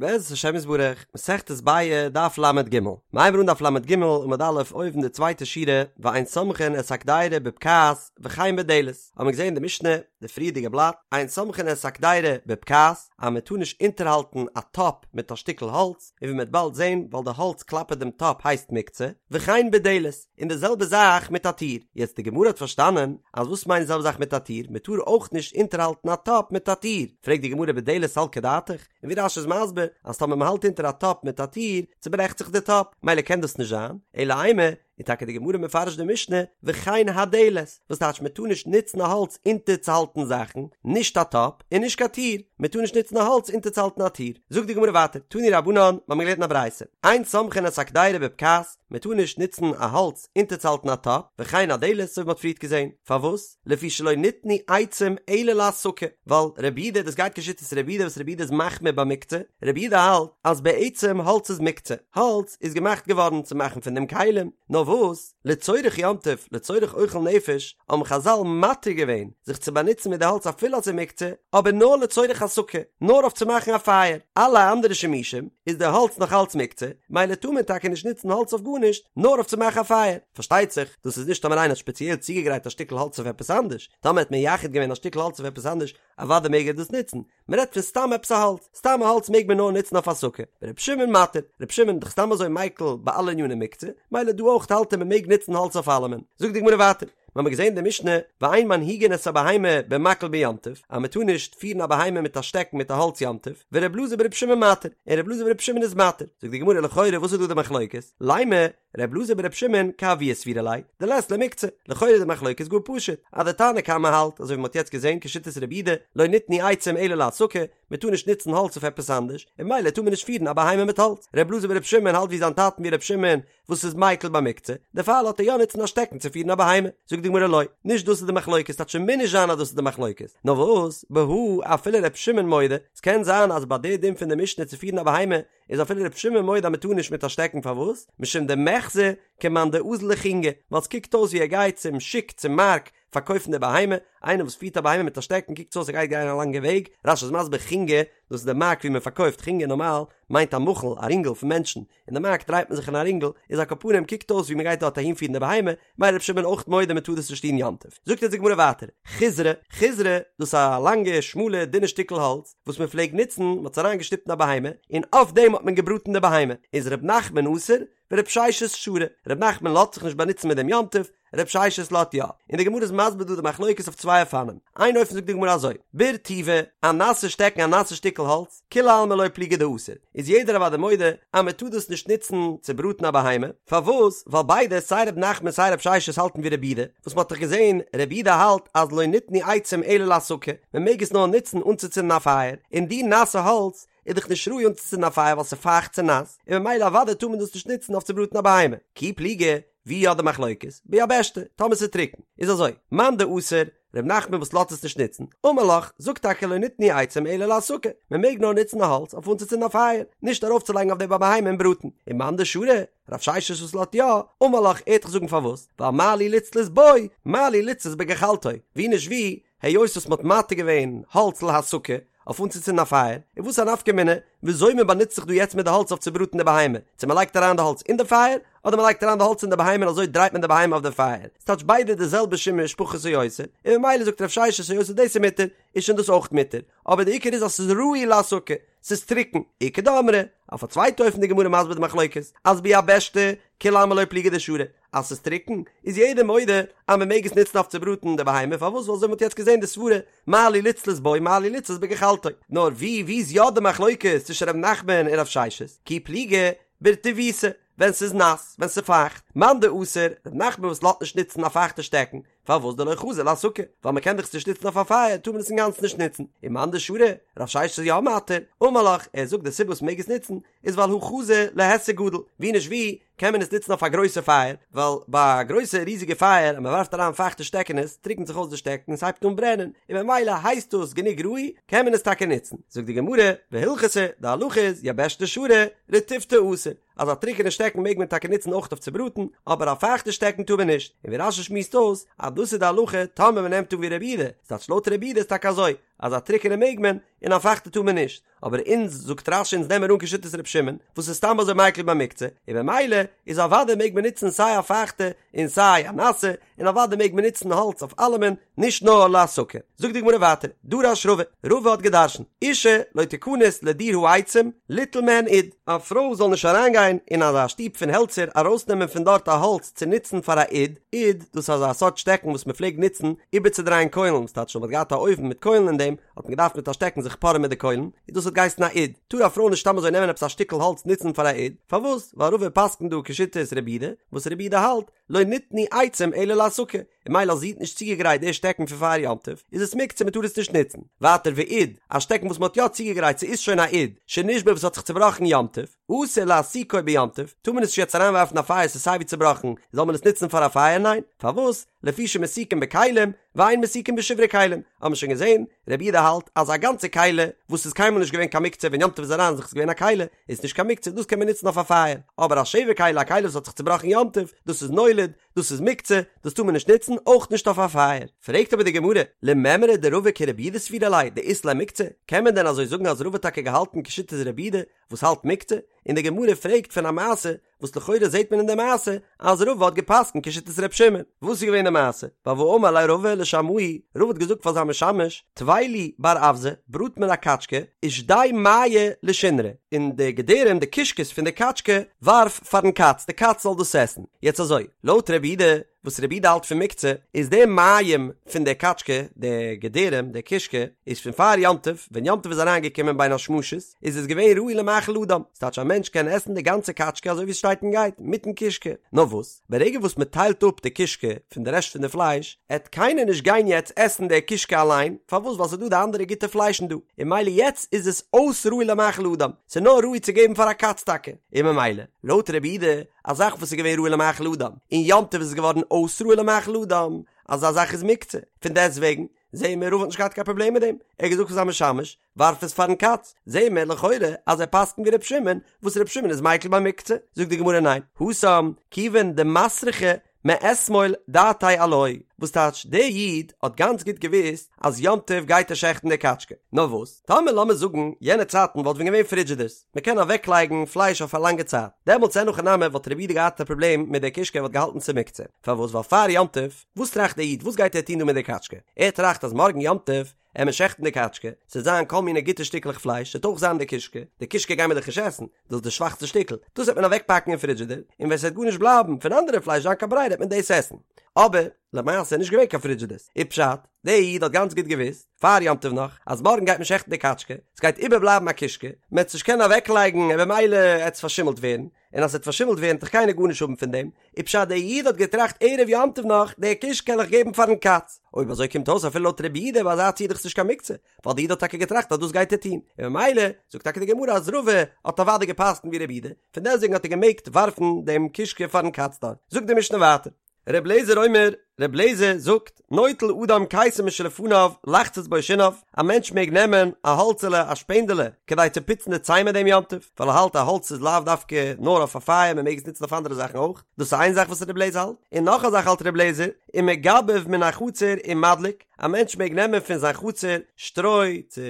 בעזרת השם יתברך, מסכת ביעא, דף לג. מ'הייבן אן דף לג עמוד א' אויבן די צווייטע שורה, ואין סומכין את הקדירה בבקעת וכן בדלת, האבן מיר געזען אין די משנה, די פריערדיגע בלאט, אין סומכין את הקדירה בבקעת, אז מען טאר נישט אונטערהאלטן א טאפ מיט א שטיקל האלץ, און ווי מען וועט באלד זען, ווייל די האלץ כלפי דעם טאפ הייסט מוקצה, וכן בדלת, און די זעלבע זאך מיט א טיר. יעצט די גמרא האט פארשטאנען אז וואס מיינט די זעלבע זאך מיט א טיר, מען טאר אויך נישט אונטערהאלטן א טאפ מיט א טיר, פרעגט די גמרא בדלת סלקא דעתך, און ווי רש"י איז מסביר אז טאמער מען האלט אונטער א טאפ מיט א טיר צוברעכט זיך די טאפ, מילא קען דאס נישט זיין, אלא אימא, איז טאקע די גמרא מפרש די משנה וכן הדלת, וואס טייטש מען טאר נישט נוצן א האלץ אונטערצוהאלטן זאכן, נישט א טאפ און נישט קיין טיר, מען טאר נישט נוצן א האלץ אונטערצוהאלטן א טיר. זאגט די גמרא ווייטער, תנו רבנן, מיר האבן געלערנט אין א ברייתא, אין סומכין את הקדירה בבקעת, מען טאר נישט נוצן א האלץ אונטערצוהאלטן א טאפ, וכן הדלת, אזוי ווי מען האט פריערט געזען, פארוואס? לפי שלא ניתנו עצים אלא להסקה, ווייל רבי יהודה, דאס גייט כשיטת רבי יהודה וואס רבי יהודה איז מחמיר ביי מוקצה, רבי יהודה האלט אז בעצם האלץ איז מוקצה, האלץ איז געמאכט געווארן צו מאכן פון דעם כלים, נאר וואס, לצורך יום טוב, לצורך אוכל נפש, האבן חז"ל מתיר געווען זיך צו באנוצן מיט די האלץ אפילו אז ס'איז מוקצה, אבער נאר לצורך הסקה, נאר אויף צו מאכן א פייער, אלע אנדערע שימושים איז די האלץ נאך אלץ מוקצה, מילא טאר מען טאקע נישט נוצן האלץ אויף גארנישט, נאר אויף צו מאכן א פייער. פארשטייט זיך, דאס איז נישט טאמער איינער האט שפעציעל צוגעגרייט א שטיקל האלץ אויף עפעס אנדערש, טאמער האט מייחד געווען א שטיקל האלץ אויף עפעס אנדערש, אוודאי מעג ער דאס נוצן, מען רעדט פון סתם עפעס א האלץ, סתם א האלץ מעג מען נאר נוצן אויף הסקה, ור' שמעון מתיר, ר' שמעון איז דאך סתם אזוי מיקל ביי אלע עניני מוקצה, מילא דא אויך האלט ער מען מעג נוצן האלץ אויף אלעמען. זאגט די גמרא ווייטער, מיר האבן געזען די משנה, ואין מנהיגין את הבהמה במקל ביום טוב, אז מען טאר נישט פירן א בהמה מיט א שטעקן מיט א האלץ יום טוב, ור' אלעזר בר' שמעון מתיר, און ר' אלעזר בר' שמעון איז מתיר, זאגט די גמרא לכאורה וואס איז דא די מחלוקת, לימא, ר' אלעזר בר' שמעון כאבוה סבירא ליה, דלית ליה מוקצה, לכאורה איז די מחלוקת גאר פשוט, אז די תנא קמא האלט, אזוי ווי מ'האט יעצט געזען כשיטת רבי יהודה, לא ניתנו עצים אלא להסקה, מ'טאר נישט נוצן האלץ אויף עפעס אנדערש, און ממילא טאר מען נישט פירן א בהמה מיט האלץ. ר' אלעזר בר' שמעון האלט ווי זיין טאטן ווי ר' שמעון וואס איז מיקל ביי מוקצה, דערפאר לאזט ער יא נוצן א שטעקן צו פירן א בהמה. זאגט די גמרא לא, נישט דאס איז די מחלוקת, ס'טייטש ס'מוז נישט זיין אז דאס איז די מחלוקת, נאר וואס, בהא אפילו ר' שמעון מודה, ס'קען זיין אז ביי די דין פון די משנה צו פירן א בהמה איז אפילו ר' שמעון מודה אז מ'טאר נישט מיט א שטעקן פארוואס? משום דמיחזי כמאן דאזיל לחינגא, ווייל ס'קוקט אויס ווי ער גייט צום שוק צום מארק פארקויפן די בהמה, איינער וואס פירט א בהמה מיט א שטעקן קוקט אויס ער גייט גיין א לאנגע וועג, רש"י איז מסביר חינגא, דאס איז די מארק ווי מען פארקויפט, חינגא נארמאל מיינט א מחול, א רינגל פון מענטשן, אין די מארק דרייט מען זיך אין א רינגל, איז על כל פנים קוקט אויס ווי מען גייט דארט אהין פירן די בהמה, מילא ר' שמעון אויך מודה מען טאר דאס נישט טון יום טוב. זאגט אונז די גמרא ווייטער, חיזרא, חיזרא, דאס איז א לאנגע שמאלע דינע שטיקל האלץ, וואס מען פלעגט נוצן, מען האט עס אריין געשטופט אין א בהמה, און אויף דעם האט מען געבראטן די בהמה, איז ר' נחמן אסר, ור' ששת שרי, ר' נחמן לאזט זיך נישט באנוצן מיט דעם יום טוב, ר' ששת לאזט יא, און די גמרא איז מסביר דא די מחלוקת אויף צוויי אופנים, איין אופן זאגט די גמרא אזוי, ברטיבא, א נאסע שטעקן א נאסע שטיקל האלץ, כולי עלמא לא פליגי דאסור, איז יעדער אוודאי מודה אז מען טאר דאס נישט נוצן צו בראטן א בהמה, פארוואס? ווייל ביידע סיי ר' נחמן סיי ר' ששת האלטן ווי רבי יהודה, וואס מען האט דאך געזען רבי יהודה האלט אז לא ניתנו עצים אלא להסקה, מען מעג עס נאר נוצן אנצוצינדן א פייער, און די נאסע האלץ איז דאך נישט ראוי אנצוצינדן א פייער ווייל ס'איז פייכט ס'איז נאס, און ממילא אוודאי טאר מען דאס נישט נוצן אויף צו בראטן א בהמה. כי פליגי, ווי יא די מחלוקת? ביבשתא, טאמער ס'איז טרוקן. איז אזוי, מאן דאסר, ר' נחמן וואס לאזט עס נישט נוצן, אמר לך, זאגט טאקע לא ניתנו עצים אלא להסקה, מען מעג נאר נוצן א האלץ אויף אנצוצינדן א פייער, נישט ארויפצולייגן אויף דעם א בהמה און בראטן. און מאן דשרי, רב ששת וואס לאזט יא, אמר לך, ער וועט דיך זאגן פארוואס, ווייל מה לי לצלות בו, מה לי לצלות בגחלתו, ווי נישט ווי, היות וואס מ'האט מתיר געווען האלץ להסקה, אויף אנצוצינדן א פייער, איז וואס א נפקא מינה וויאזוי מען באנוצט זיך דא יעצט מיט די האלץ אויף צו בראטן די בהמה, צו מען לייגט אריין די האלץ אין די פייער, אדער מען לייגט אריין די האלץ אין די בהמה און אזוי דרייט מען די בהמה אויף די פייער, ס'טייטש ביידע די זעלבע שימוש פחות או יותר, און ממילא זאגט רב ששת היות וואס דאס איז מותר, איז שוין דאס אויך מותר, אבער די עיקר איז אז ס'איז ראוי להסקה, ס'איז טרוקן, איכא דאמרי, אויף א צווייטע אופן די גמרא מסביר די מחלוקת, אז ביבשתא, כולי עלמא לא פליגי דשרי, אז ס'איז טרוקן, איז יעדער מודה אז מען מעג עס נוצן אויף צו בראטן די בהמה, פארוואס? ווייל אזוי ווי מ'האט יעצט געזען די סברה, מה לי לצלות בו מה לי לצלות בגחלתו. נאר ווי ווי איז יא די מחלוקת צווישן ר' נחמן און רב ששת? כי פליגי ברטיבתא, ווען ס'איז נאס, ווען ס'איז פייכט, מאן דאסר, ר' נחמן וואס לאזט נישט נוצן א פייכטע שטעקן, פארוואס דלא חזי להסקה? ווייל מ'קען דאך עס נישט נוצן אויף א פייער טאר מען עס אינגאנצן נישט נוצן. און מאן דשרי, רב ששת איז יא מתיר, אמר לך, ער זאגט די סיבה וואס מ'מעג עס נוצן איז ווייל הא חזי להיסק גדול, ווי נישט ווי קען מען עס נוצן אויף א גרויסע פייער, ווייל ביי א גרויסע ריזיגע פייער אז מ'ווארפט אריין פייכטע שטעקענעס טריקנט זיך אויס די שטעקן און ס'הייבט אן ברענען, און ממילא הייסט דאס גענוג ראוי קען מען עס טאקע נוצן. זאגט די גמרא, והלכתא, די הלכה איז, יבשתא שרי, רטיבתא אסור. אז א טרוקענע שטעקן מעג מען טאקע נוצן אויך אויף צו בראטן, אבער א פייכטע שטעקן טאר מען נישט, און ווי רש"י שמועסט אויס אז דאס איז די הלכה טאמער מען נעמט אן ווי רבי יהודה, ס'טייטש לויט רבי יהודה איז טאקע אזוי, אז א טרוקענע מעג מען און א פייכטע טאר מען נישט, אבער אונז, זאגט רש"י אונז נעמען אן כשיטת ר' שמעון, וואס איז סתם אזוי מיקל ביי מוקצה, און במילא איז אוודאי מעג מען נוצן סיי א פייכטע און סיי א נאסע, און אוודאי מעג מען נוצן האלץ אויף אלעמען, נישט נאר להסקה. זאגט די גמרא ווייטער, דרש רבא, רבא האט גע'דרש'נט, אשה לא תכנס לדיר העצים ליטול מהן אוד, א פרוי זאל נישט אריינגיין אין אזא שטוב פון העלצער ארויסנעמען פון דארט א האלץ צו נוצן פאר א אוד, אוד, דאס איז אזא סארט שטעקן וואס מען פלעגט נוצן איבערצודרייען קוילן, וואס טייטש אז מען האט געהאט א אויוון מיט קוילן אין דעם, האט מען געדארפט מיט א שטעקן זיך פארען מיט די קוילן, און דאס האט געהייסן א אוד. טאר א פרוי נישט סתם אזוי נעמען עפעס א שטיקל האלץ נוצן פאר א אוד, פארוואס? ווייל רבא פסק'נט דא כשיטת רבי יהודה, וואס רבי יהודה האלט, לא ניתנו עצים אלא להסקה, און ממילא אז זי האט נישט צוגעגרייט די שטעקן פון פאר יום טוב, איז עס מוקצה מען טאר עס נישט נוצן. ווייטער ואוד, א שטעקן וואס מען האט יא צוגעגרייט ס'איז שוין א אוד, שנשבר וואס האט זיך צובראכן יום טוב, אסור להסיקו ביום טוב, טאר מען עס נישט יעצט אריינווארפן א פייער ס'איז סייווי צובראכן, זאל מען עס נוצן פאר א פייער? ניין. פארוואס? לפי שמסיקין בכלים, ואין מסיקין בשברי כלים, האבן מיר שוין געזען, רבי יהודה האלט אז א גאנצע כלי וואס איז קיינמאל נישט געווען קיין מוקצה ווען יום טוב איז אריין זיך איז געווען א כלי, איז נישט קיין מוקצה דאס קען מען נוצן אויף א פייער, אבער א שבר כלי א כלי וואס האט זיך צובראכן יום טוב, דאס איז נולד, דאס איז מוקצה, דאס טאר מען נישט נוצן, אויך נישט אויף א פייער. פרעגט אבער די גמרא, למימרא דרבא כרבי יהודה סבירא ליה דאית ליה מוקצה, קען מען דען אזוי זאגן אז רבא האט טאקע געהאלטן כשיטת רבי יהודה וואס האלט מוקצה, און די גמרא פרעגט פון א מעשה וואס לכאורה זעט מען אין די מעשה אז רבא האט געפסקנט כשיטת ר' שמעון. וואס איז געווען די מעשה? ווייל והאמר ליה רבא לשמעיה, רבא האט געזאגט פאר זיין משמש, טוי לי בר אווזא, בראט מיר א קאטשקע, ושדי מעייה לשונרא, און די געדערים, די קישקעס פון די קאטשקע, ווארף פארן קאץ, די קאץ זאל דאס עסן. יעצט אזוי, לויט רבי יהודה, וואס רבי יהודה האלט פון מוקצה, איז די מעיים פון די קאטשקע, די געדערים, די קישקע, איז פון פאר יום טוב, ווען יום טוב איז אריין געקומען בין השמשות, איז עס געווען ראוי למאכל אדם, ס'טייטש א מענטש קען עסן די גאנצע קאטשקע אזוי ווי עס שטייט און גייט, מיטן קישקע. נאר וואס, ברגע וואס מען טיילט אפ די קישקע פון די רעשט פון די פלייש, עט קיינער נישט גיין יעצט עסן די קישקע אליין, פארוואס? ווייל ס'איז דא די אנדערע גוטע פליישן דא, און ממילא יעצט איז עס אויס ראוי למאכל אדם, ס'איז נאר ראוי צו געבן פאר א קאץ טאקע, און ממילא, לויט רבי יהודה, א זאך וואס איז געווען ראוי למאכל אדם, און יום טוב איז עס געווארן אויס ראוי למאכל אדם, אזא זאך איז מוקצה, פון דעסט וועגן, זעהן מיר רבא האט נישט געהאט קיין פראבלעם מיט דעם, ער האט געזאגט פאר זיין משמש, ווארף עס פארן קאץ, זעהן מיר לכאורה אז ער פסק'נט ווי ר' שמעון, וואס ר' שמעון איז מיקל ביי מוקצה, זאגט די גמרא ניין, התם, כיוון דמסרחא מאתמול דעתיה עילויה, וואס טייטש דער איד האט גאנץ גוט געוואוסט אז יום טוב גייט ער שעכטן די קאטשקע, נאר וואס, טאמער לאמיר זאגן יענע צייטן וואלט ווען געווען פרידזשידערס, מען קען אוועק לייגן פלייש אויף א לאנגע צייט, דעמאלטס אין הכי נמי וואלט רבי יהודה געהאט א פראבלעם מיט די קישקע ער וואלט געהאלטן ס'איז מוקצה, פארוואס ווייל פאר יום טוב, וואס טראכט דער איד וואס גייט ער טון דא מיט די קאטשקע, ער טראכט אז מארגן יום טוב עט מען שעכטן די קאטשקע, ס'עט זיין כל מיני גוטע שטיקלעך פלייש, ס'עט אויך זיין די קישקע, די קישקע גיימער דאך נישט עסן, דאס איז די שוואכסטע שטיקל, דאס וועט מען אוועקפאקן אין פרידזשידער, און ווען ס'וועט גארנישט בלייבן פון אנדערע פלייש זיין קיין ברירה וועט מען דאס עסן. אבער, למעשה איז נישט געווען קיין פרידזשידערס, איז פשט, דער איד האט גאנץ גוט געוואוסט, פאר יום טוב נאך, אז מארגן גייט מען שעכטן די קאטשקע, ס'גייט איבערבלייבן א קישקע, מ'עט עס נישט קענען אוועקלייגן און במילא עט עס פארשימלט ווערן, און אז ס'וועט פארשימלט ווערן וועט דאך קיינער גארנישט האבן פון דעם, איז פשט דער איד האט געטראכט ערב יום טוב נאך, די קישקע קען איך געבן פארן קאץ, אויב אזוי קומט אויס אפילו לויט רבי יהודה ביי אזא ציור איז דאך נישט קיין מוקצה, ווייל די איד האט טאקע געטראכט אז דאס גייט ער טון, און ממילא זאגט טאקע די גמרא אז רבא האט אוודאי געפסקנט ווי רבי יהודה, פון דעסטוועגן האט ער געמעגט ווארפן דעם קישקע פארן קאץ דארט. זאגט די משנה ווייטער. ר' אליעזר אומר, ר' אליעזר זאגט, נוטל אדם קיסם משלפניו לחצות בו שיניו, א מענטש מעג נעמען א האלצעלע, א שפענדעלע, כדי צו פוצן די ציין מיט דעם יום טוב, ווייל ער האלט א האלץ איז לאו דווקא נאר אויף א פייער מען מעג עס נוצן אויף אנדערע זאכן אויך, דאס איז איין זאך וואס ר' אליעזר האלט, און נאך א זאך האלט ר' אליעזר, ומגבב מן החצר ומדליק, א מענטש מעג נעמען פון זיין חצר שטרוי צו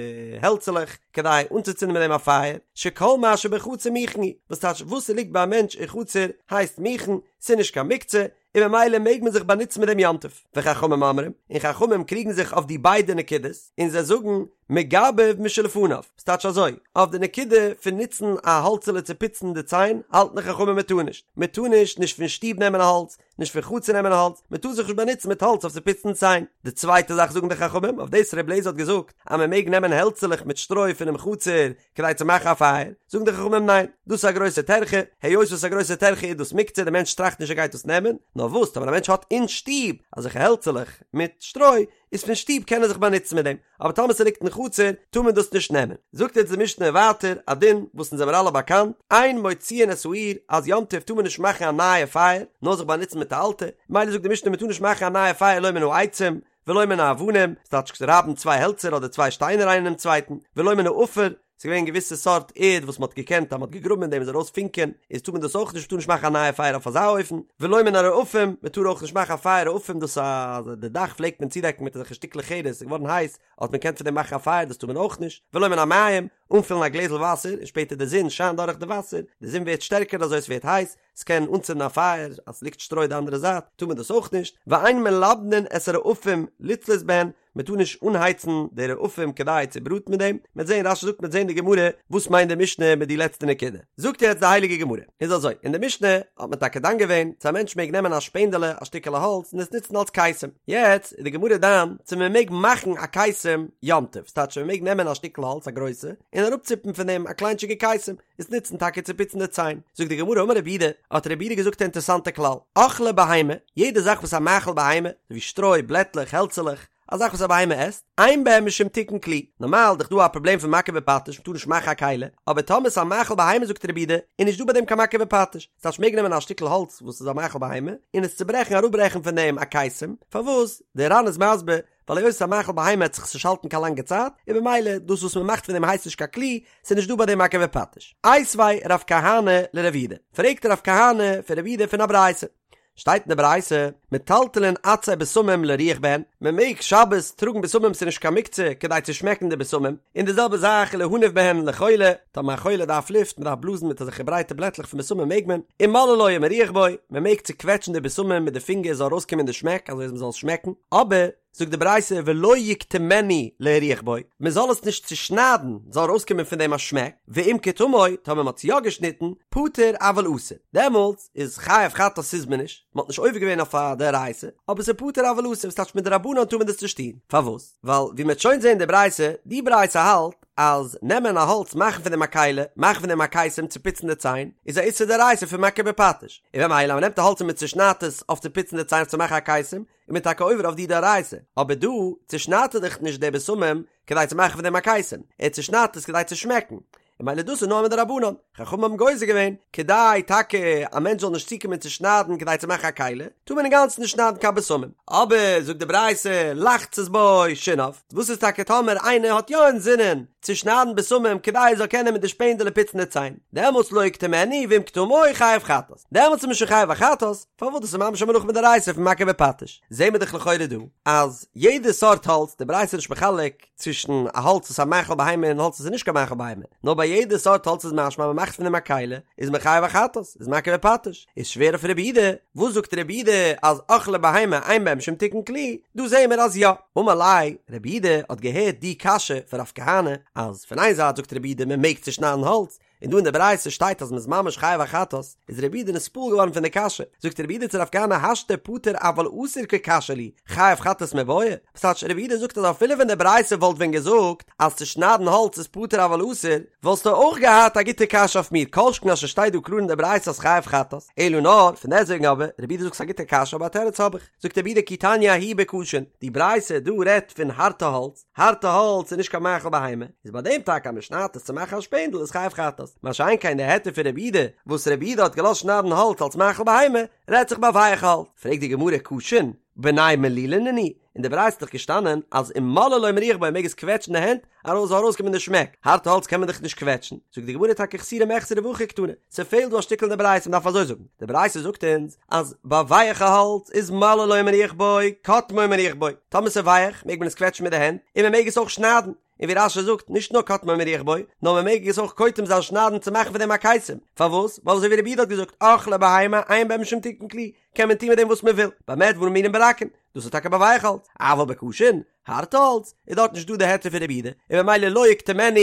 העלצעלעך כדי אנצוצינדן מיט דעם א פייער, שכל מה שבחצר מוכן הוא, וואס טייטש וואס ס'ליגט ביי א מענטש אין חצר הייסט מוכן, ס'איז נישט קיין מוקצה, און ממילא מעג מען זיך באנוצן מיט דעם יום טוב. וחכמים אומרים, און חכמים קריגן זיך אויף די ביידע נקודות, און זיי זאגן, מגבב משלפניו, ס'טייטש אזוי, אויף די נקודה פון נוצן א האלצעלע צו פוצן די ציין, האלטן די חכמים מען טאר נישט, מען טאר נישט נישט פון שטוב נעמען האלץ, נישט פון חצר נעמען האלץ, מען טאר זיך נישט באנוצן מיט האלץ אויף צו פוצן ציין. די צווייטע זאך זאגן די חכמים, אויף דאס ר' אליעזר האט געזאגט אז מען מעג נעמען העלצעלעך מיט שטרוי פונעם חצר כדי צו מאכן א פייער, זאגן די חכמים ניין, דאס איז א גרויסע טרחה, היות וואס איז א גרויסע טרחה איז דאס מוקצה, די מענטש טראכט נישט ער גייט דאס נעמען, נאר וואס טאמער א מענטש האט אין שטוב אזעלכע העלצעלעך מיט שטרוי, איז פון שטוב קען ער זיך באנוצן מיט דעם, אבער טאמער ס'ליגט אין חצר טאר מען דאס נישט נעמען. זאגט יעצט די משנה ווייטער א דין וואס אונז זעמער אלע באקאנט, אין מוציאין את האור, אז יום טוב טאר מען נישט מאכן א נייע פייער, נאר זיך באנוצן מיט א אלטע, מילא זאגט די משנה מען טאר נישט מאכן א נייע פייער לא מן העצים, ולא מן האבנים, ס'טייטש רייבן צוויי העלצער אדער צוויי שטיינער איינער אינעם צווייטן, ולא מן העפר, ס'איז געווען געוויסע סארט ערד וואס מ'האט געקענט אז מ'האט געגראבן אין דעם איז ארויס פונקען, איז טאר מען דאס אויך נישט, מ'טאר נישט מאכן א נייע פייער אויף אזא אופן, ולא מן הרעפים, מ'טאר אויך נישט מאכן א פייער רעפים דאס אז די דאך פלעגט מען צודעקן מיט אזעלכע שטיקלעך חרס, ס'איז געווארן הייס, האט מען געקענט פון דעם מאכן א פייער דאס טאר מען אויך נישט, ולא מן המים, אנפילן א גלעזל וואסער און שפעטער די זון שיינט דורך די וואסער, די זון ווערט שטערקער אזוי עס ווערט הייס, ס'קען אנצינדן א פייער, אז ס'ליגט שטרוי די אנדערע זייט טאר מען דאס אויך נישט, ואין מלבנין את הרעפים לצלות בהן, מען טאר נישט אנהייצן די רעפים כדי צו בראטן מיט דעם, מ'עט זען רש"י זאגט מ'עט זען די גמרא וואס מיינט די משנה מיט די לעצטע נקודה, זאגט יעצט די הייליגע גמרא, איז אזוי, אין די משנה האט מען טאקע דן געווען צו א מענטש מעג נעמען א שפענדעלע א שטיקעלע האלץ און עס נוצן אלס קיסם, יעצט איז די גמרא דן צו מען מעג מאכן א קיסם יום טוב, ס'טייטש מען מעג נעמען א שטיקל האלץ א גרויסע און אראפציפן פון דעם א קליינטשיגע קיסם, עס נוצן טאקע צו פוצן די ציין. זאגט די גמרא אמר רב יהודה, האט רב יהודה געזאגט א אינטערסאנטע כלל, אוכלי בהמה, יעדע זאך וואס א מאכל בהמה, אזוי ווי שטרוי, בלעטלעך, העלצעלעך, א זאך וואס א בהמה עסט, אין בהם משום תיקון כלי, נארמאל איז דאך דא א פראבלעם פון מכה בפטיש, מ'טאר נישט מאכן א כלי, אבער טאמער ס'איז א מאכל בהמה זאגט רב יהודה, איז נישט דא ביי דעם קיין מכה בפטיש, ס'טייטש מ'מעג נעמען א שטיקל האלץ וואס איז א מאכל בהמה, און עס צוברעכן אראפברעכן פון דעם א קיסם, פארוואס? דער ר"ן איז מסביר, ווייל היות ס'איז א מאכל בהמה וועט זיך עס נישט האלטן קיין לאנגע צייט, און במילא דאס וואס מ'מאכט פון דעם הייסט נישט קיין כלי, ס'איז נישט דא ביי דעם מכה בפטיש. איתיביה רב כהנא לרב יהודה, פרעגט רב כהנא פון רב יהודה פון א ברייתא. שטייט אין די ברייתא, מטלטלין עצי בשמים להריח בהן, מען מעג שבת טראגן בשמים ס'איז נישט קיין מוקצה כדי צו שמעקן די בשמים, און די זעלבע זאך להניף בהן לחולה, טאמער א חולה דארף לופט, מען דארף בלאזן מיט אזעלכע ברייטע בלעטלעך פון בשמים מעג מען, ומוללו ומריח בו, מען מעג צוקוועטשן די בשמים מיט די פינגער זאל ארויסקומען די שמעק אזוי אז מען זאל עס שמעקן, אבער, זאגט די ברייתא ולא יקטמנו להריח בו, מען זאל עס נישט צושניידן זאל ארויסקומען פון דעם א שמעק, ואם קטמו, טאמער מען האט עס יא געשניטן, פטור אבל אסור, דעמאלטס איז חייב חטאת איז מען נישט, מען האט נישט עובר געווען אויף א דאורייתא, אבער ס'איז פטור אבל אסור, וואס טייטש מדרבנן טאר מען דאס נישט טון, פארוואס? ווייל ווי מען וועט שוין זען אין די ברייתא, די ברייתא האלט אז נעמען א האלץ מאכן פון דעם א כלי, מאכן פון דעם א קיסם צו פוצן די ציין, איז א איסור דאורייתא פון מכה בפטיש, און במילא אז מען נעמט א האלץ און מען צושניידט עס אויף צו פוצן די ציין אויף צו מאכן א קיסם, איז מען טאקע עובר אויף די דאורייתא, אבער דא צושניידט ער דאך נישט די בשמים כדי צו מאכן פון דעם א קיסם, ער צושניידט עס כדי צו שמעקן, און ממילא דאס איז נאר מדרבנן, חכמים האבן גוזר געווען, כדי טאקע א מענטש זאל נישט צוקומען צו שניידן כדי צו מאכן א כלי, טאר מען אינגאנצן נישט שניידן קיין בשמים. אבער זאגט די ברייתא, לחצות בו שיניו, וואס איז טאקע טאמער איינער האט יא אינזינען צו שניידן בשמים כדי ער זאל קענען מיט די שפענדעלע פוצן די ציין, דעמאלטס לא יקטמנו ואם קטמו חייב חטאת, דעמאלטס איז מען שוין חייב א חטאת, פארוואס דאס איז ממש א מלאכה מדאורייתא פון מכה בפטיש, זעהן מיר דאך לכאורה דא אז יעדע סארט האלץ, די ברייתא איז נישט מחלק צווישן א האלץ וואס איז א מאכל בהמה און האלץ וואס איז נישט קיין מאכל בהמה, נאר ביי יעדע סארט האלץ איז משמע אז מען מאכט פון דעם א כלי, איז מען חייב א חטאת, איז מכה בפטיש, איז שווער אויף רב יהודה, וואס זאגט רב יהודה אז אוכלי בהמה אין בהם משום תיקון כלי, דא זעהן מיר אז יא. אמר ליה, רב יהודה האט געהערט די קשיא פון רב כהנא, אז פון איין זייט זאגט רב יהודה מען מעג צושניידן האלץ, און דא אין די ברייתא שטייט אז מ'איז ממש חייב א חטאת, איז רב יהודה נתפעל געווארן פון די קשיא, זאגט רב יהודה צו רב כהנא השתא פטור אבל אסור קא קשיא לי, חייב חטאת מיבעיא? וואס טייטש רב יהודה זאגט אז אפילו ווען די ברייתא וואלט ווען געזאגט אז צו שניידן האלץ איז פטור אבל אסור, וואלסטו אויך געהאט א גוטע קשיא אויף מיר, כל שכן אז ס'שטייט דא קלאר אין די ברייתא אז חייב חטאת, אלא נאר, פון דעסטוועגן אבער, רב יהודה זאגט ס'איז א גוטע קשיא אבער א תירוץ האב איך, זאגט רב יהודה כי תניא ההיא בקשין, די ברייתא דא רעדט פון הארטע האלץ, הארטע האלץ איז נישט קיין מאכל בהמה, איז ביי דעם טאקע אז מען שניידט עס צו מאכן א שפענדל איז חייב חטאת, מה שאין כן די היתר פון רב יהודה וואס רב יהודה האט געלאזט שניידן האלץ אלס מאכל בהמה, רעדט זיך ביי ווייעך האלץ. פרעגט די גמרא קשין, בני מלילה נינהו, אין די ברייתא איז דאך געשטאנען אז ומוללו ומריח בו מעג עס קוועטשן די הענט ארויס זאל ארויסקומען די שמעק, הארטע האלץ קען מען דאך נישט קוועטשן, זאגט די גמרא טאקע חסורי מחסרא והכי קתני, ס'פעלט דא א שטיקל אין די ברייתא מ'דארף אזוי זאגן, די ברייתא זאגט אונז אז ביי ווייעכע האלץ איז מוללו ומריח בו, קוטמו ומריח בו, טאמער ס'איז ווייעך מעג מען עס קוועטשן מיט די הענט, און מ'מעג עס אויך שניידן, און ווי רש"י זאגט, נישט נאר קוטמו ומריח בו, נאר מ'מעג עס אויך קוטם זיין שניידן צו מאכן פון דעם א קיסם, פארוואס? ווייל אזוי ווי רב יהודה האט געזאגט, אוכלי בהמה אין בהם משום תיקון כלי, קען מען טון מיט דעם וואס מ'וויל, במה דברים אמורים ברכין, דאס איז טאקע ביי ווייעך האלץ, אבל בקשין, הארט האלץ, איז דארט נישט דא די היתר פון רב יהודה, און ממילא לא יקטמנו,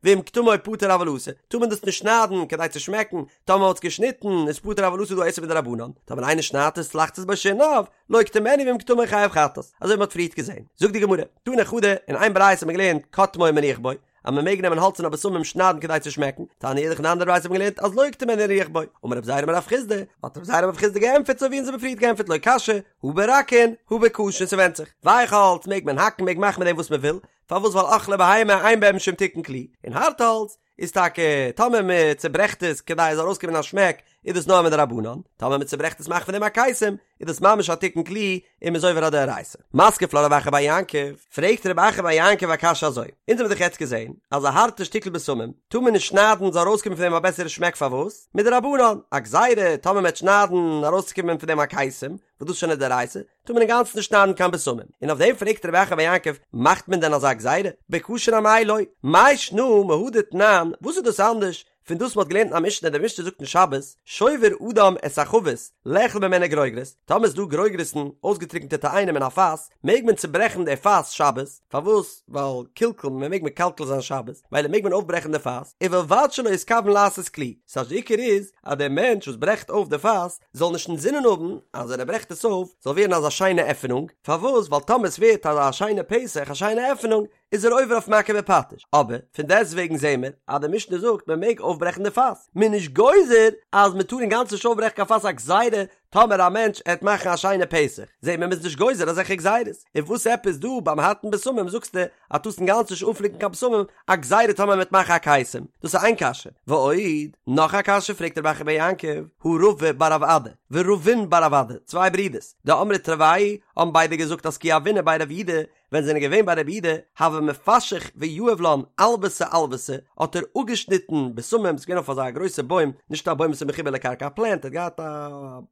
ואם קטמו פטור אבל אסור, טאר מען דאס נישט שניידן כדי צו שמעקן, טאמער מען האט עס געשניטן איז פטור אבל אסור דא א איסור מדרבנן, טאמער איינער שניידט עס לחצות בו שיניו, לא יקטמנו ואם קטמו חייב חטאת, אזוי ווי מען האט פריערט געזען. זאגט די גמרא, תני חדא, אין איין ברייתא האט מען געלערנט קוטמו ומריח בו, אז מען מעג נעמען האלץ און א בשמים שניידן כדי צו שמעקן, תניא אידך אין אן אנדערע ברייתא האט מען געלערנט אז לא יקטמנו להריח בו, אמר רב זירא אמר רב חסדא, האט רב זירא אמר רב חסדא געענטפערט אזוי ווי אונז האבן פריערט געענטפערט לא קשיא, הא ברכין, הא בקשין ס'ווענדט זיך, ווייך האלץ מעג מען האקן מעג מאכן מיט דעם וואס מען וויל, פארוואס ווייל אוכלי בהמה אין בהם משום תיקון כלי, און הארטע האלץ איז טאקע טאמער מען צוברעכט עס כדי עס זאל ארויסקומען א שמעק איז דאס נאר מדרבנן, טאמער מען צוברעכט עס מאכט פון דעם א קיסם איז דאס ממש א תיקון כלי און מען איז עובר א דאורייתא. מתקיף לה רב אחא בר יעקב, פרעגט רב אחא בר יעקב א קשיא אזוי, אונז האבן דאך יעצט געזען אז א הארטע שטיקל בשמים טאר מען נישט שניידן זאל ארויסקומען פון דעם א בעסערע שמעק פארוואס? מדרבנן, א גזירה טאמער מען וועט שניידן ארויסצוקומען פון דעם א קיסם, וואס דאס איז שוין א דאורייתא, טאר מען אינגאנצן נישט שניידן קיין בשמים, און אויף דעם פרעגט רב אחא בר יעקב, מאכט מען דען אזא גזירה? בכשר אמאי לא? מאי שנא מהא דתנן, וואס איז דאס אנדערש פון דאס מ'האט געלערנט אין א משנה, די משנה זאגט אין שבת, שובר אדם את החבית, לאכול ממנה גרוגרות, טאמער איז דא גרוגרות'ן, אויסגעטריקענטע תאנים אין א פאס, מעג מען צוברעכן די פאס שבת, פארוואס? ווייל קלקול, מען מעג מקלקל זיין שבת, מילא מעג מען אויפברעכן די פאס, ובלבד שלא יתכוון לעשות כלי, ס'הייסט די עיקר איז אז דער מענטש וואס ברעכט אויף די פאס זאל נישט אינזינען האבן אז ווען ער ברעכט עס אויף זאל ווערן אזא שיינע עפענונג, פארוואס? ווייל טאמער עס ווערט אזא שיינע פתח, א שיינע עפענונג, איז ער עובר אויף מכה בפטיש, אבער פון דעסטוועגן זעהן מיר אז די משנה זאגט מען מעג אויפברעכן די פאס, מען איז נישט גוזר אז מען טאר אינגאנצן נישט אויפברעכן קיין פאס א גזירה טאמער א מענטש עט מאכן א שיינע פתח, זעהט מען מ'איז נישט גוזר אזעלכע גזירות, און וואס עפעס דא ביים הארטן בשמים זאגסטו אז טארסט אינגאנצן נישט אנפליקן קיין בשמים א גזירה טאמער מ'עט מאכן א קיסם, דאס איז איין קשיא, ועוד, נאך א קשיא פרעגט רב אחא בר יעקב, הא רבא בר רב אדא, ורבין בר רב אדא, צוויי ברידערס, דאמרי תרוייהו האבן ביידע געזאגט אז כי הוינן בי רב יהודה, ווען זיי זענען געווען ביי רב יהודה, הוה מפשח ויהיב לן עלוותא עלוותא, האט ער אפגעשניטן בשמים, ס'איז געווען אויף אזא גרויסע בוים, נישט א בוים וואס איז מחובר לקרקע, א פלענט, ער האט געהאט א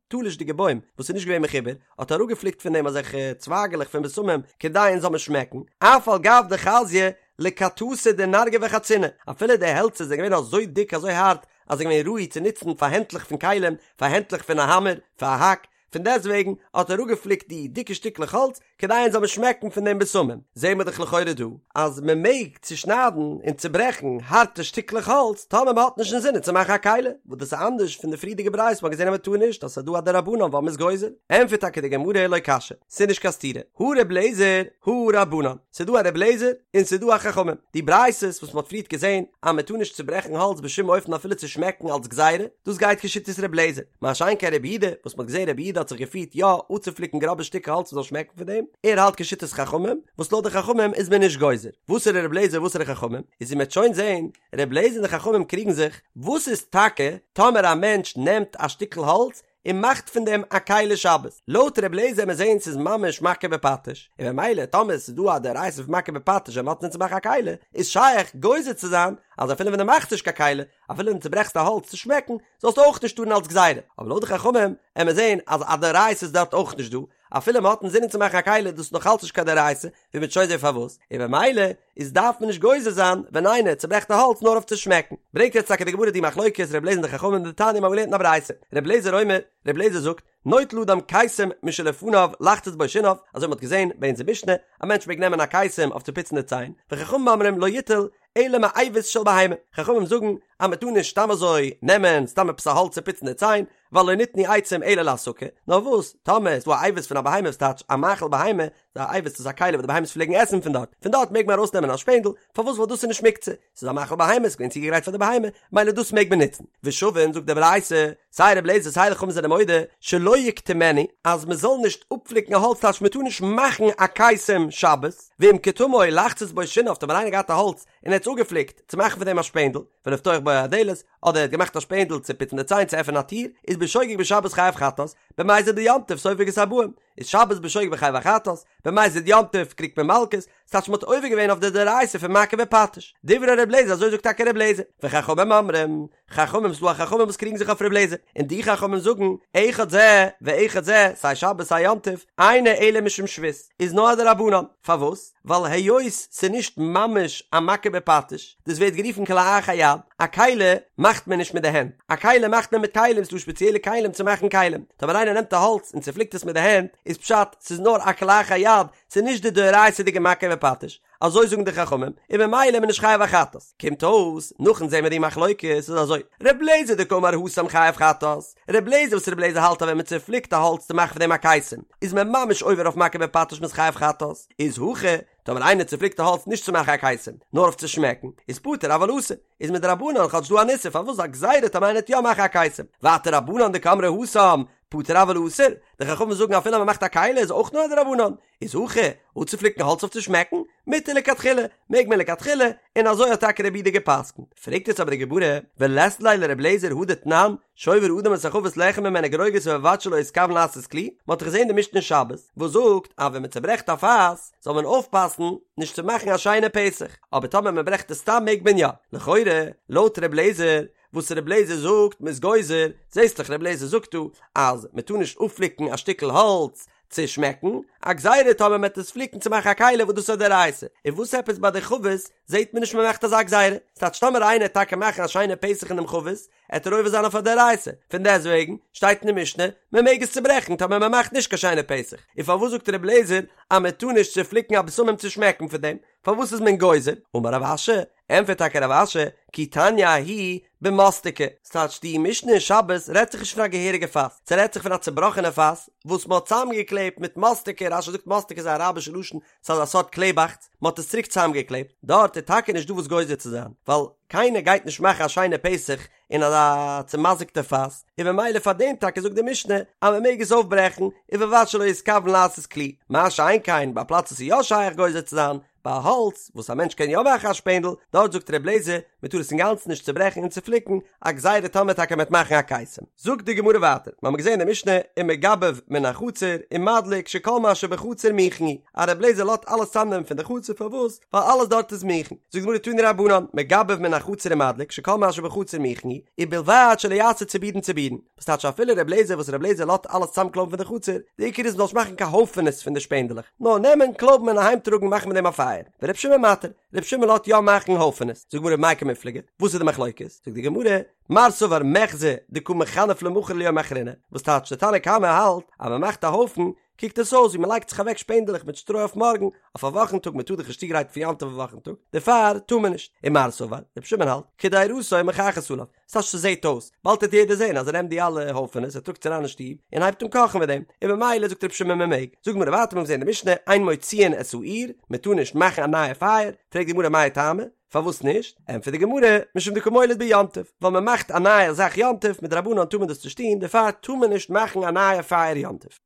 תלוש'דיגע בוים וואס איז נישט געווען מחובר, האט ער אראפגעפליקט פון דעם אזעלכע צווייגעלעך פון בשמים, כדי אונז זאל מען שמעקן, אף על גב דחזיא לכתתא דנרגי וחציני, אפילו די העלצער זענען געווען אזוי דיק אזוי הארט, אז זיי זענען געווען ראוי צו נוצן פאר הענטלעך פון כלים, פאר הענטלעך פון א האמער, פאר א האק, פון דעסטוועגן האט ער אראפגעפליקט די דיקע שטיקלעך האלץ כדי אונז זאל מען שמעקן פון דעם בשמים. זעהן מיר דאך לכאורה דא אז מען מעג צושניידן און צוברעכן הארטע שטיקלעך האלץ טאמער מען האט נישט אינזינען צו מאכן א כלי, וואס דאס איז אנדערש פון די פריערדיגע ברייתא וואס מען האט געזעהן אז מען טאר נישט אז ס'איז דא א דרבנן ווייל מען איז גוזר. ענטפערט טאקע די גמרא לא קשיא, ס'איז נישט קיין סתירה, הא ר' אליעזר הא רבנן, ס'איז דא א ר' אליעזר און ס'איז דא א חכמים, די ברייתות וואס מען האט פריערט געזעהן אז מען טאר נישט צוברעכן האלץ בשום אופן אפילו צו שמעקן אלץ גזירה, דאס גייט כשיטת ר' אליעזר. מה שאין כן רבי יהודה, וואס מ'האט געזען רבי יהודה האט זיך געפירט יא אפצופליקן גראבע שטיקער האלץ מ'זאל שמעקן פון דעם, ער האלט כשיטת חכמים, וואס לויט די חכמים איז מען נישט גוזר. וואסערע רבי אליעזר וואסערע חכמים? איז ווי מ'עט שוין זען, רבי אליעזר און די חכמים קריגן זיך, וואס איז טאקע טאמער א מענטש נעמט א שטיקל האלץ און מאכט פון דעם א כלי שבת? לויט רבי אליעזר וועט מען זען ס'איז ממש מכה בפטיש, און במילא טאמער ס'איז דא א דאורייתא פון מכה בפטיש ווען מ'האט אינזין צו מאכן א כלי, איז שייך גוזר צו זיין אז אפילו ווען דו מאכסט נישט קיין כלי, אפילו ווען דו צוברעכסט א האלץ צו שמעקן, זאלסטו אויך נישט טארן אלס גזירה, אבער לויט די חכמים עמיר זעהן אז א דאורייתא איז דארט אויך נישט דא, אפילו מען האט אינזינען צו מאכן א כלי איז דאס נאך אלץ נישט קיין דאורייתא, ווי מ'וועט שוין זעהן פארוואס, און במילא איז דארף מען נישט גוזר זיין ווען איינער צוברעכט א האלץ נאר אויף צו שמעקן. ברענגט יעצט טאקע די גמרא די מחלוקת ר' אליעזר און די חכמים דתניא מ'האט געלערנט אין א ברייתא, ר' אליעזר אומר, ר' אליעזר זאגט, נוטל אדם קיסם משלפניו לחצות בו שיניו, אזוי מ'האט געזעהן ביי אונזער משנה, א מענטש מעג נעמען א קיסם אויף צו פוצן די ציין, וחכמים אומרים לא יטול אלא מאבוס של בהמה, חכמים זאגן אז מען טאר נישט סתם אזוי נעמען סתם עפעס א האלץ צו פוצן די ציין, ווייל לא ניתנו עצים אלא להסקה, נאר וואס, טאמער איז דא א אבוס פון א בהמה וואס טייטש א מאכל בהמה, די אבוס איז א כלי וואס די בהמות פלעגן עסן פון דארט, פון דארט מעג מען ארויסנעמען א שפענדל, פארוואס ווייל דאס איז נישט מוקצה, ס'איז א מאכל בהמה, ס'איז געווען צוגעגרייט פאר די בהמה, מילא דאס מעג מען נוצן. ושווין, זאגט די ברייתא, סיי רבי אליעזר סיי די חכמים זענען מודה, שלא יקטמנו, אז מען זאל נישט אפפליקן א האלץ טייטש מען טאר נישט מאכן א קיסם שבת, ואם קטמו לחצות בו שיניו, טאמער איינער געהאט א האלץ און ער האט עס אפגעפליקט צו מאכן פון דעם א שפענדל, ולפתוח בו הדלת, אדער ער האט געמאכט א שפענדל צו פוצן די ציין צו עפענען א טיר, איז בשוגג בשבת חייב חטאת, במזיד ביום טוב סופג את הארבעים, איז שבת בשוגג חייב א חטאת, במזיד יום טוב קריגט מען מלקות, ס'טייטש מ'האט עובר געווען אויף די דאורייתא פון מכה בפטיש. דברי ר' לעזער אזוי זאגט טאקע ר' לעזער. וחכמים אומרים, חכמים ס'דא א חכמים וואס קריגן זיך אויף ר' לעזער, און די חכמים זאגן, אחד זה ואחד זה, סיי שבת סיי יום טוב, אינו אלא משום שבות, איז נאר א דרבנן. פארוואס? ווייל היות ס'נישט ממש א מכה בפטיש, דאס ווערט גערופן כלאחר יד, א כלי מאכט מען נישט מיט די הענט, א כלי מאכט מען מיט כלים, ס'דא שפעציעלע כלים צו מאכן כלים, טאמער איינער נעמט א האלץ און צופליקט עס מיט די הענט, איז פשט ס'איז נאר א כלאחר יד, ס'איז נישט די דאורייתא'דיגע מכה בפטיש, אזוי זאגן די חכמים, און ממילא איז מען נישט חייב א חטאת. קומט אויס, נאכן זעהן מיר די מחלוקת, איז אזוי, ר' לעזער דקאמר התם חייב חטאת, ר' לעזער וואס ר' לעזער האלט אז ווען מען צופליקט א האלץ צו מאכן פון דעם א קיסם, איז מען ממש עובר אויף מכה בפטיש מ'איז חייב חטאת, איז הכא, טאמער איינער צופליקט א האלץ נישט צו מאכן א קיסם, נאר אויף צו שמעקן, איז פטור אבל אסור, איז מדרבנן כאטש דא אן איסור פארוואס א גזירה טאמער איינער וועט יא מאכן א קיסם, ווייטער רבנן דקאמרי התם. פטור אבל אסור, די חכמים זאגן אפילו אז מען מאכט א כלי איז אויך נאר א דרבנן, איז הכא, אפצופליקן האלץ אויף צו שמעקן, מותר לכתחילה, מעג מען לכתחילה, און אזוי האט טאקע רבי יהודה גע'פסק'נט. פרעגט יעצט אבער די גמרא, ולית ליה לר' אליעזר הא דתנן, שובר אדם את החבית לאכול ממנה גרוגרות ובלבד שלא יתכוון לעשות כלי, מען האט דאך געזען די משנה אין שבת, וואס זאגט אז ווען מען צעברעכט א פאס, זאל מען אויפפאסן נישט צו מאכן א שיינע פתח, אבער טאמער מען ברעכט עס סתם מעג מען יא. לכאורה, לויט ר' אליעזר, וואס ר' אליעזר זאגט מ'איז גוזר, זעסט דאך ר' אליעזר זאגט דא אז מען טאר נישט אפפליקן א שטיקל האלץ צו שמעקן, א גזירה טאמער מ'עט עס פליקן צו מאכן א כלי וואס דאס איז א דאורייתא, און וואס עפעס ביי די חבית זעט מען נישט מ'מאכט אזא גזירה, ס'טייטש טאמער איינער עט טאקע מאכן א שיינע פתח אין דעם חבית, עט ער עובר זיין אויף א דאורייתא, פון דעסטוועגן שטייט אין די משנה מ'מעג עס צוברעכן טאמער מ'מאכט נישט קיין שיינע פתח, און פארוואס זאגט ר' אליעזר אז מ'טאר נישט צופליקן א בשמים צו שמעקן פון דעם, פארוואס איז מען גוזר? אמר רב אשי, ענטפערט טאקע רב אשי, כי תניא ההיא במוסתקי, ס'טייטש די משנה אין שבת רעדט זיך נישט פון א געהעריגע פאס, ס'רעדט זיך פון א צובראכענע פאס וואס מ'האט צוזאמגעקלעבט מיט מוסתקי, רשי זאגט מוסתקי איז א אראבישע לשון, ס'איז אזא סארט קלעבאכץ, מ'האט עס צוריק צוזאמגעקלעבט, דארט איז טאקע נישט דא וואס גוזר צו זיין, ווייל קיינער גייט נישט מאכן א שיינע פתח אין אזא צומזיק'טע פאס, און ממילא פאר דעם טאקע זאגט די משנה אז מ'מעג עס אויפברעכן, ובלבד שלא יתכוון לעשות כלי, מה שאין כן ביי א פלאץ וואס איז יא שייך גוזר צו זיין, ביי האלץ וואס א מענטש קען יא מאכן א שפענדל, דארט זאגט ר' אליעזר, מען טאר עס אינגאנצן נישט צוברעכן און צופליקן, א גזירה טאמער טאקע מ'עט מאכן א קיסם. זאגט די גמרא ווייטער, מ'האמיר געזען אין די משנה, ומגבב מן החצר, ומדליק שכל מה שבחצר מוכן הוא, אז ר' אליעזר לאזט אלעס צאמנעמען פון די חצר, פארוואס? ווייל אלעס דארט איז מוכן. זאגט די גמרא תנו רבנן, מגבב מן החצר ומדליק שכל מה שבחצר מוכן הוא, ובלבד שלא יעשה צבורין צבורין. וואס טייטש אפילו ר' אליעזר וואס ר' אליעזר לאזט אלעס צאמקלויבן פון די חצר, די עיקר איז מ'זאל נישט מאכן קיין הויפענעס פון די שפענדלעך, נאר נעמען, קלויבן און אהיים טראגן מאכן מיט דעם א פייער, ור' שמעון מתיר, ר' שמעון לאזט יא מאכן הויפענעס, זאגט די גמרא במאי קמיפלגי, וואס איז די מחלוקת? זאגט די גמרא, מר סבר מיחזי דקא מכנף למחר וליומא אחרינא, וואס טייטש די תנא קמא האלט אז מ'מאכט א הויפן, קוקט עס אויס ווי מ'לייגט זיך אוועק שפענדלעך מיט שטרוי אויף מארגן, אויף א וואכן טאג, מ'טאר דאך נישט צוגרייטן פון יום טוב אויף וואכן טאג, דערפאר טאר מען נישט, ומר סבר, ר' שמעון האלט, קדירתו מוכחת עליו, ס'טייטש ס'זעהט אויס, באלד וועט יעדער זעהן אז ער נעמט די אלע הויפענעס ער טראגט עס אריין אין שטוב און הייבט אן קאכן מיט דעם, און ממילא זאגט רבי שמעון מען מעג. זאגט די גמרא ווייטער מיר האבן געזעהן די משנה אין מוציאין את האור, מען טאר נישט מאכן א נייע פייער, פרעגט די גמרא מאי טעמא, פארוואס נישט? ענטפערט די גמרא, משום דקא מוליד ביום טוב, ווייל מען מאכט א נייע זאך יום טוב, מדרבנן טאר מען דאס נישט טון, דערפאר טאר מען נישט מאכן א נייע פייער יום טוב.